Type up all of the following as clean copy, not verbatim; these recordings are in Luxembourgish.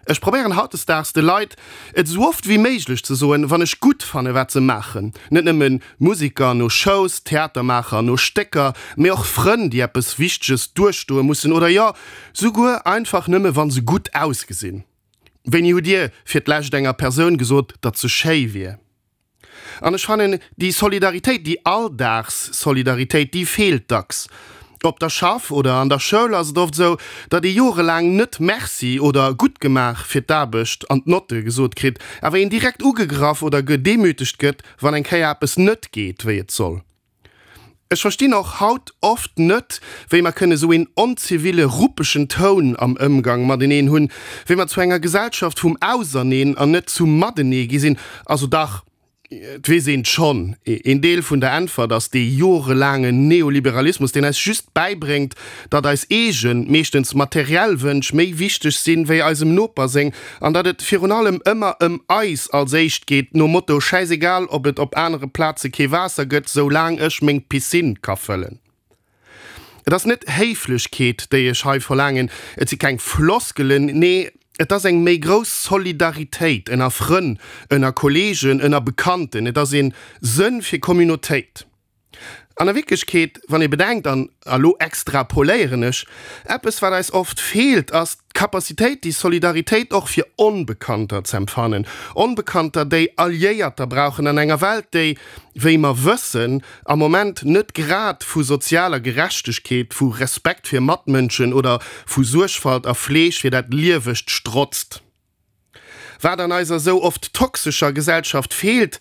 Ech probéieren hautdesdaags de Leit et esou oft wéi méiglech ze soen, wann ech gutt fanne wat se maachen. Net nëmme Musiker no Shows, Theatermaacher no Stécker, mee och Frënn, déi eppes Wichteges duerchstoe mussen oder jo, souguer einfach nëmme wa se gutt ausgesinn. Wéini hutt Dir fir d'lescht enger Persoun gesot, datt se schéi wier? An ech fannen, déi Solidaritéit, déi Alldagsolidaritéit, déi feelt dacks. Op der Schaff oder an der Schoul ass et oft esou, datt ee jorelaang net Merci oder gutt gemaach fir d'Aarbecht an d'Notte gesot kritt, awer een direkt ugegraff oder gedemütegt gëtt, wann eng Kéier eppes net geet, wéi et soll. Ech verstinn och haut oft net, wéi mer kënne sou een onziville, ruppegen Toun am Ëmgang mateneen hunn, wéi mer zu enger Gesellschaft vum Auserneen an net zum Matenee gi sinn. Also dach, et weess een schonn, een Deel vun der Äntwert ass dee jorelaangen Neoliberalismus, deen eis just bäibréngt, datt eis eegen, meeschtens materiell Wënsch méi wichteg sinn, wéi eisem Noper seng, an datt et virun allem ëmmer ëm eis als éischt geet, nom Motto, schäisegal ob et op anere Plaze kee Waasser gëtt, soulaang ech meng Piscine ka fëllen. Et ass net Héiflechkeet, déi ech hei verlaangen, et si keng Floskelen, nee, et ass eng méi grouss Solidaritéit ënner Frënn, ënner Kolleegen, ënner Bekannten, et ass ee Sënn fir Communautéit. An a Wierklechkeet, wann ee bedenkt, an elo extrapoléieren ech, eppes wat eis oft feelt, ass d'Capacitéit déi Solidaritéit och fir Onbekannter z'empfannen, Onbekannter déi Alliéierter brauchen an enger Welt déi, wéi mer wëssen, am Moment net grad vu sozialer Gerechtegkeet, vu Respekt fir Matmënschen oder vu Suergfalt a Fleeg fir dat Liewegt strotzt. Wat an eiser sou oft toxescher Gesellschaft feelt,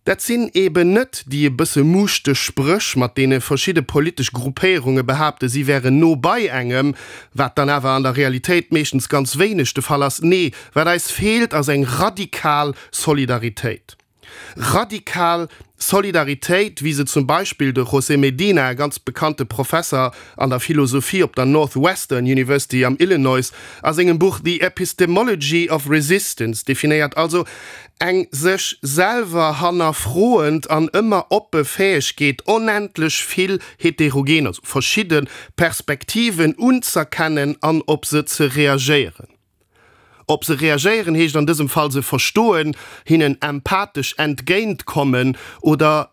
dat sinn eben net déi e bësse muuschteg Spréch, mat deene verschidde politesch Gruppéierunge behaapte si wären no bei engem, wat dann awer an der Realitéit meeschtens ganz wéineg de Fall ass. Nee, wat eis feelt, ass eng radikal Solidaritéit. Radikal Solidaritéit, wéi se zum Beispill de José Medina, e ganz bekannte Professer an der Philosophie op der Northwestern University am Illinois, a sengem Buch The Epistemology of Resistance definéiert, also eng sech selwer hannerfroend an ëmmer oppe Fäegkeet, onendlech vill heterogen, also verschidde Perspektiven unz'erkennen an op se ze reagéieren. Op se reagéieren heescht an dësem Fall se verstoen, hinnen empathesch entgéint kommen oder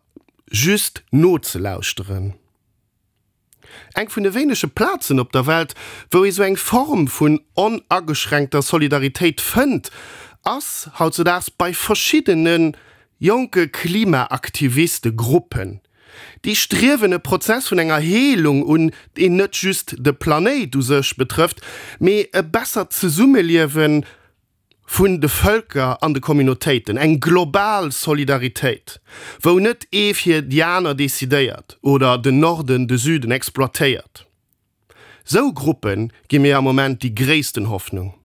just nozelauschteren. Eng vun de wéinege Plazen op der Welt, wou ee sou eng Form vun onageschränkter Solidaritéit fënnt, ass hautzedaags bei verschiddene jonke Klimaaktiviste-Gruppen. Déi striewen e Prozess vun enger Heelung un, deen net just de Planéit u sech betrëfft, mee e bessert Zesummeliewe vun de Vëlker an de Communautéiten, eng global Solidaritéit, wou net ee fir déi aner decidéiert oder den Norden de Süden exploitéiert. Sou Gruppe gi mir am Moment déi gréissten Hoffnung.